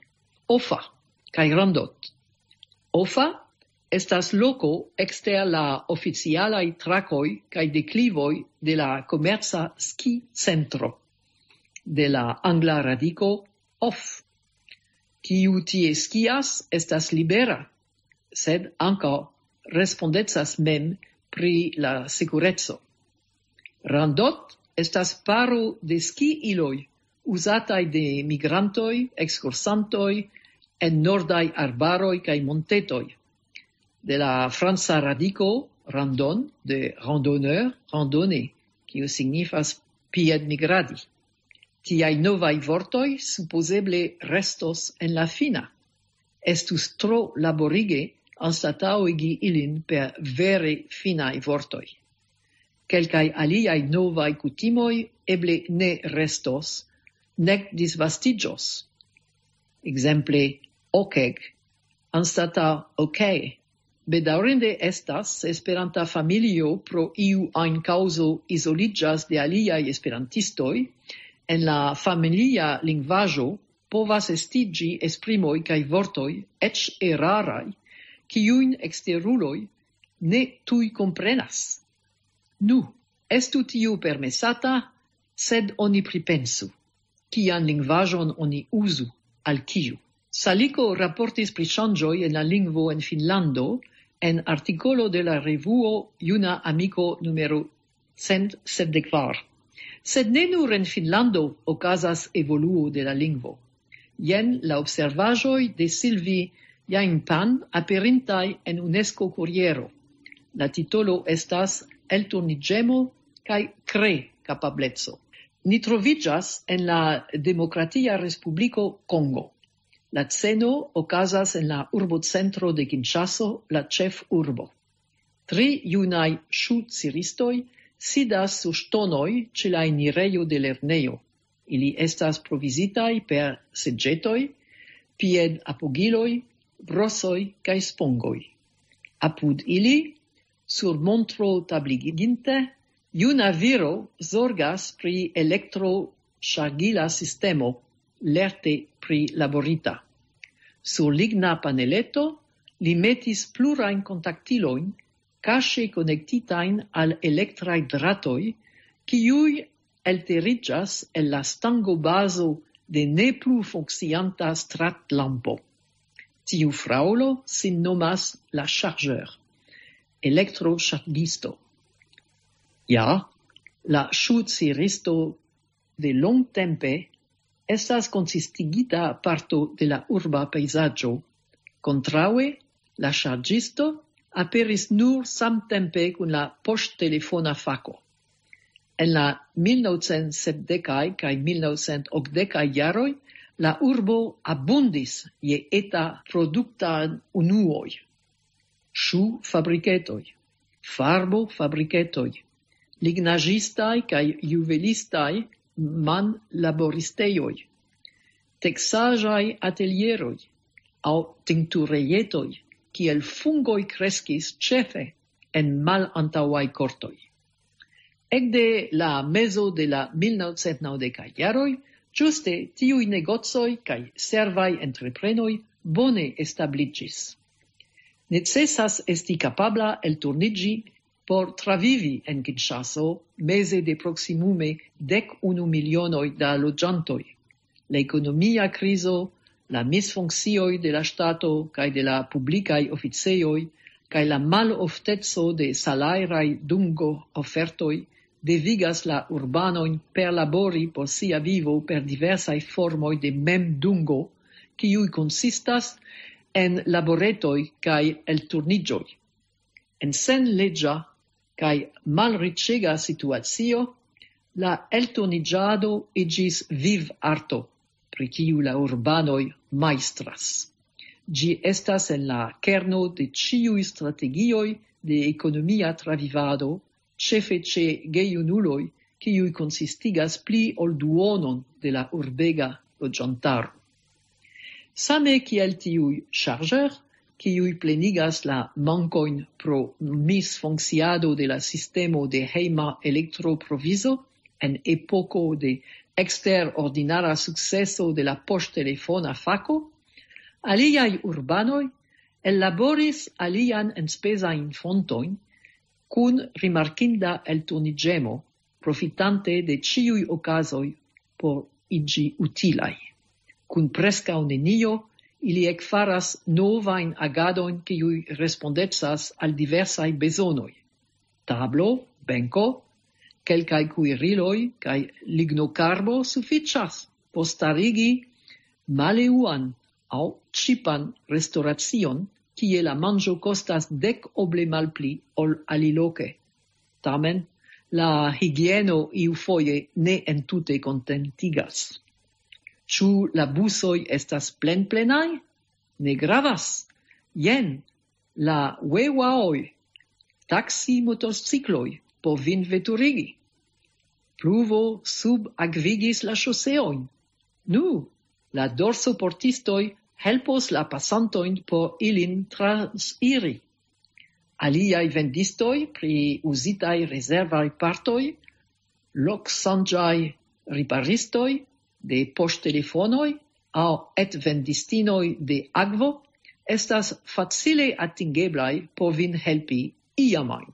Ofa kaj Randot. Ofa estas loko ekster la oficialaj trakoj kaj deklivoj de la komerca ski-centro, de la angla radiko off. Kiu tie skias, estas libera, sed ankaŭ respondecas mem pri la sekureco. Randot estas paro de ski-iloj uzataj de migrantoj, ekskursantoj en nordaj arbaroj kaj montetoj. De la franca radiko randon, de randonneur, randonner, kiu signifas piedmigradi. Tiaj novaj vortoj supozeble restos en la fina. Estus tro laborige anstataŭigi ilin per vere finaj vortoj. Kelkaj aliaj novaj kutimoj eble ne restos, nek disvastiĝos. Ekzemple, okeg anstataŭ ok. Bedaŭrinde estas, se Esperanta familio pro iu ajn kaŭzo izoliĝas de aliaj esperantistoj, en la familia lingvaĵo povas estiĝi esprimoj kaj vortoj, eĉ eraraj, kiujn eksteruloj ne tuj komprenas. Nu, estu tiu permesata, sed oni pripensu, kian lingvaĵon oni uzu, al kiu. Saliko raportis pri ŝanĝoj en la lingvo en Finnlando en artikolo de la revuo Juna Amiko numero cent sepdek kvar. Sed ne nur en Finnlando okazas evoluo de la lingvo. Jen la observaĵoj de Silvi Jainpan aperintaj en UNESCO Kuriero. La titolo estas "Elturniĝemo kaj kre-kapableco". Ni troviĝas en la Demokratia Respubliko Kongo. La sceno okazas en la urbocentro de Kinŝaso, la ĉefurbo. Tri junaj ŝu-ciristoj sidas sur ŝtonoj ĉe la enirejo de lernejo. Ili estas provizitaj per seĝetoj, piedapogiloj, brosoj kaj spongoj. Apud ili, sur montro tabliginte, juna viro zorgas pri elektroŝargila sistemo, lerte prilaborita. Sur ligna paneleto li metis plurajn kontaktilojn, kaŝe konektitajn al elektraj dratoj, kiuj elteriĝas el la stangobazo de ne plu funkcianta stratlampo. Tiu fraŭlo sin nomas la chargeur, elektroŝargisto. Ja, la ŝuciristo de longtempe estas konsistigita parto de la urba pejzaĝo. Kontraŭe, la ŝarĝisto aperis nur samtempe kun la poŝtelefona fako. En la mil novcent sepdekaj kaj mil novcent okdekaj jaroj la urbo abundis je eta produkta unuoj. Ŝufabriketoj, farbofabriketoj, lignaĵistaj kaj juvelistaj manlaboristejoj, teksaĵaj atelieroj aŭ tinkturejetoj, kiel fungoj kreskis ĉefe en malantaŭaj kortoj. Ekde la mezo de la mil novcent naŭdekaj jaroj, ĝuste tiuj negocoj kaj servaj entreprenoj bone establiĝis. Necesas esti kapabla elturniĝi por travivi en Kinŝaso meze de proksimume dek unu milionoj da loĝantoj. La ekonomia krizo, la misfunkcioj de la ŝtato kaj de la publikaj oficejoj, kaj la malofteco de salajraj dungo-ofertoj devigas la urbanojn perlabori por sia vivo per diversaj formoj de memdungo, kiuj konsistas en laboretoj kaj elturniĝoj. En senleĝa kaj malriĉega situacio, la elturniĝado iĝis vivarto, pri kiu la urbanoj majstras. Ĝi estas en la kerno de ĉiuj strategioj de ekonomia travivado, ĉefe ĉe gejunuloj, kiuj konsistigas pli ol duonon de la urbega loĝantaro. Same kiel tiuj chargeur, kiuj plenigas la mankojn pro misfunkciado de la sistemo de hejma elektroprovizo en epoko de eksterordinara sukceso de la poŝtelefona fako, aliaj urbanoj ellaboris alian enspezajn fontojn kun rimarkinda elturniĝemo, profitante de ĉiuj okazoj por iĝi utilaj. Kun preskaŭ nenio, ili ekfaras novajn agadojn, kiuj respondecas al diversaj bezonoj. Tablo, benko, kelkaj kuiriloj kaj lignokarbo sufiĉas por starigi maleuan aŭ ĉipan restoracion, kie la manĝo kostas dek oble malpli ol aliloke. Tamen, la higieno iufoje ne entute kontentigas. Ĉu la busoj estas plenplenaj? Ne gravas. Jen, la wewaoj, taksi motocikloj por vin veturigi. Pluvo subakvigis la ŝoseojn. Nu, la dorsoportistoj helpos la pasantojn por ilin transiri. Aliaj vendistoj pri uzitaj rezervaj partoj, loksanĝaj riparistoj de poŝtelefonoj aŭ etvendistinoj de akvo estas facile atingeblaj por vin helpi iamajn.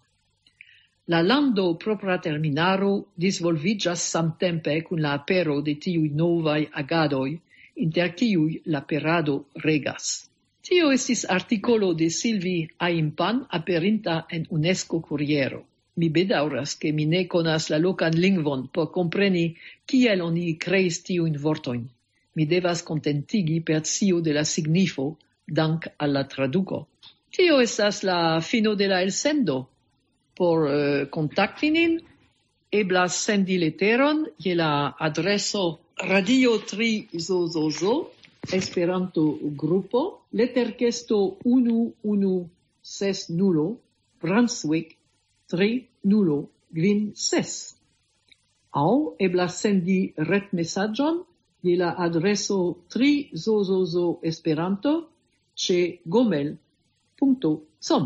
La lando propra terminaro disvolviĝas samtempe kun la apero de tiuj novaj agadoj, inter kiuj la perado regas. Tio estis artikolo de Silvi Aimpan aperinta en UNESCO Kuriero. Mi bedaŭras, ke mi ne konas la lokan lingvon por kompreni, kiel oni kreis tiujn vortojn. Mi devas kontentigi per scio de la signifo, dank al la traduko. Tio estas la fino de la elsendo. Por eh, kontakti nin, eblas sendi leteron je la adreso Radio tri Zozozo, Esperanto Grupo, leterkesto unu unu ses nulo, Brunswick tri nulo kvin ses. Aŭ eblas sendi retmesaĝon je la adreso tri Zozozo Esperanto ĉe gomel.com.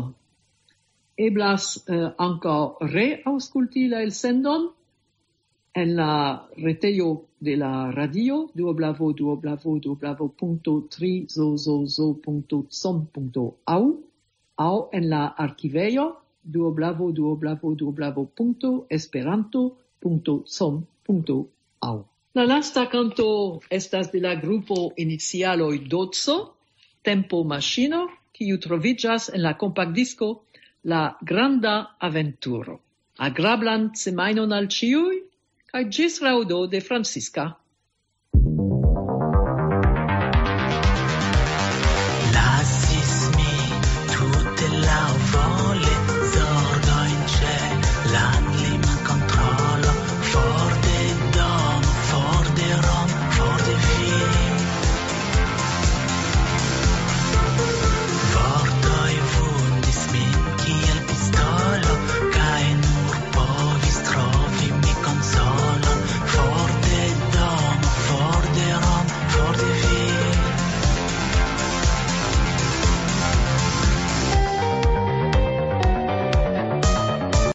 Eblas eh, ankaŭ reaŭskulti la elsendon en la retejo de la radio www.trizozozo.com.au aŭ en la arkivejo www.esperanto.com.au. La lasta kanto estas de la grupo inicialoj Doco, Tempo Maŝino, kiu troviĝas en la kompaktdisko La Granda Aventuro. Agrablan semajnon al ĉiuj, kaj ĝis raŭdo de Francisca.